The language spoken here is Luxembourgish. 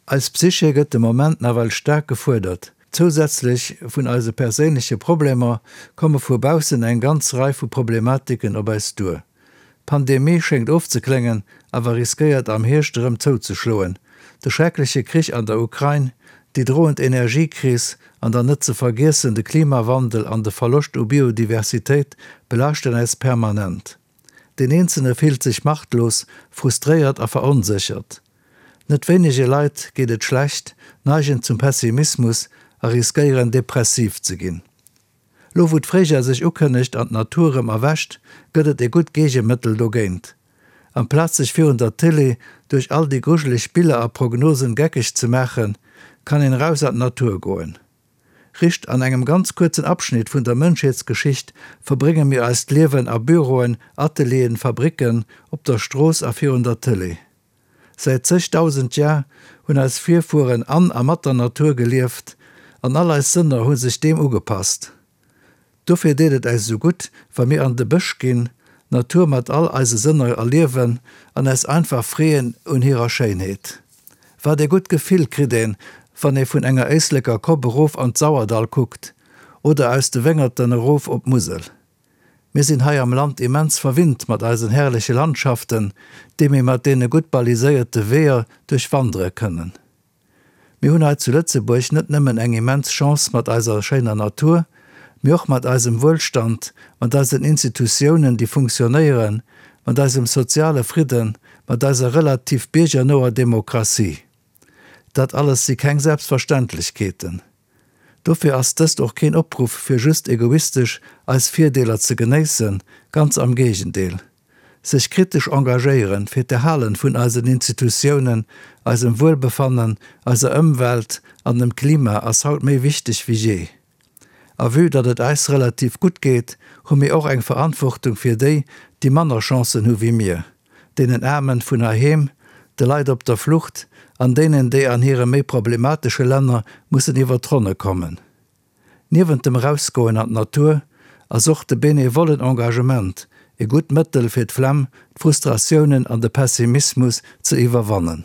Eis Psyche gëtt de Moment nawell staark gefuerdert. Zousätzlech vun eise perséinleche Problemer komme vu baussen eng ganz Rei vu Problematiken op eis duer. D'Pandemie schéngt ofzekléngen, awer riskéiert am Hierscht erëm zouzeschloen. De schreckleche Krich an der Ukrain, déi droend Energiekris an dann net ze vergiessen de Klimawandel an de Verloscht u Biodiversitéit belaaschten äis permanent. Deen Eenzelne fillt sech machtlos, frustréiert a veronséchert. Net wéinege Leit geet et schlecht, neigen zum Pessimismus a riskéieren depressiv ze ginn. Lo wou d'Fréijoer sech ukënnegt an d'Natur rëm erwächt, gëtt et e gutt Geegemëttel dogéint. Amplaz sech virun der Télé duerch all déi grujeleg Biller a Prognosen geckeg ze maachen, kann een eraus an d'Natur goen. Rischt an engem ganz kuerzen Abschnitt vun der Mënschheetsgeschicht verbrénge mir eist Liewen a Büroen, Atelieren, Fabricken, op der Strooss a virun der Télé. Säit zegdausend Jar hunn eis Virfueren an a mat der Natur gelieft an all eis Sënner hu sech deem ugepasst. Dofir deet et äis esou gutt, wa mir an de Bësch ginn, d'Natur mat all eise Sënner erliewen an äis einfach freeën un hirer Schéinheet. Wat ee gutt Gefill kritt een, wann ee vun enger Éisleker Kopp erof an d'Sauerdall kuckt oder aus de Wéngerten erof op d'Musel. Mir sinn hei am Land immens verwinnt mat eisen herrleche Landschaften, déi mir mat deene gutt baliséierte Weeër duerchwandere kënnen. Mir hunn hei zu Lëtzebuerg net nëmmen eng immens Chance mat eiser schéiner Natur, mee och mat eisem Wuelstand, mat eisen Institutiounen, déi funktionéieren, mat eisem soziale Fridden, mat eiser relativ biergernoer Demokratie. Dat alles si keng Selbstverständlechkeeten. Dofir ass dëst och keen Opruff fir just egoistesch eis Virdeeler ze genéissen, ganz am Géigendeel. Sech kritesch engagéieren fir d'Erhalen vun eisen Institutiounen, eisem Wuelbefannen, eiser Ëmwelt an dem Klima ass haut méi wichteg wéi jee. A vue datt et eis relativ gutt geet, hu mir och eng Verantwortung fir déi, déi manner Chancen hu wéi mir, deenen Aarmen vun heiheem, de Leit op der Flucht an deenen, déi an hire méi problematesche Länner mussen iwwer d'Ronne kommen. Niewent dem Erausgoen an d'Natur ass och de benevollen Engagement e gutt Mëttel fir d'Flemm, d'Frustratiounen an de Pessimismus ze iwwerwannen.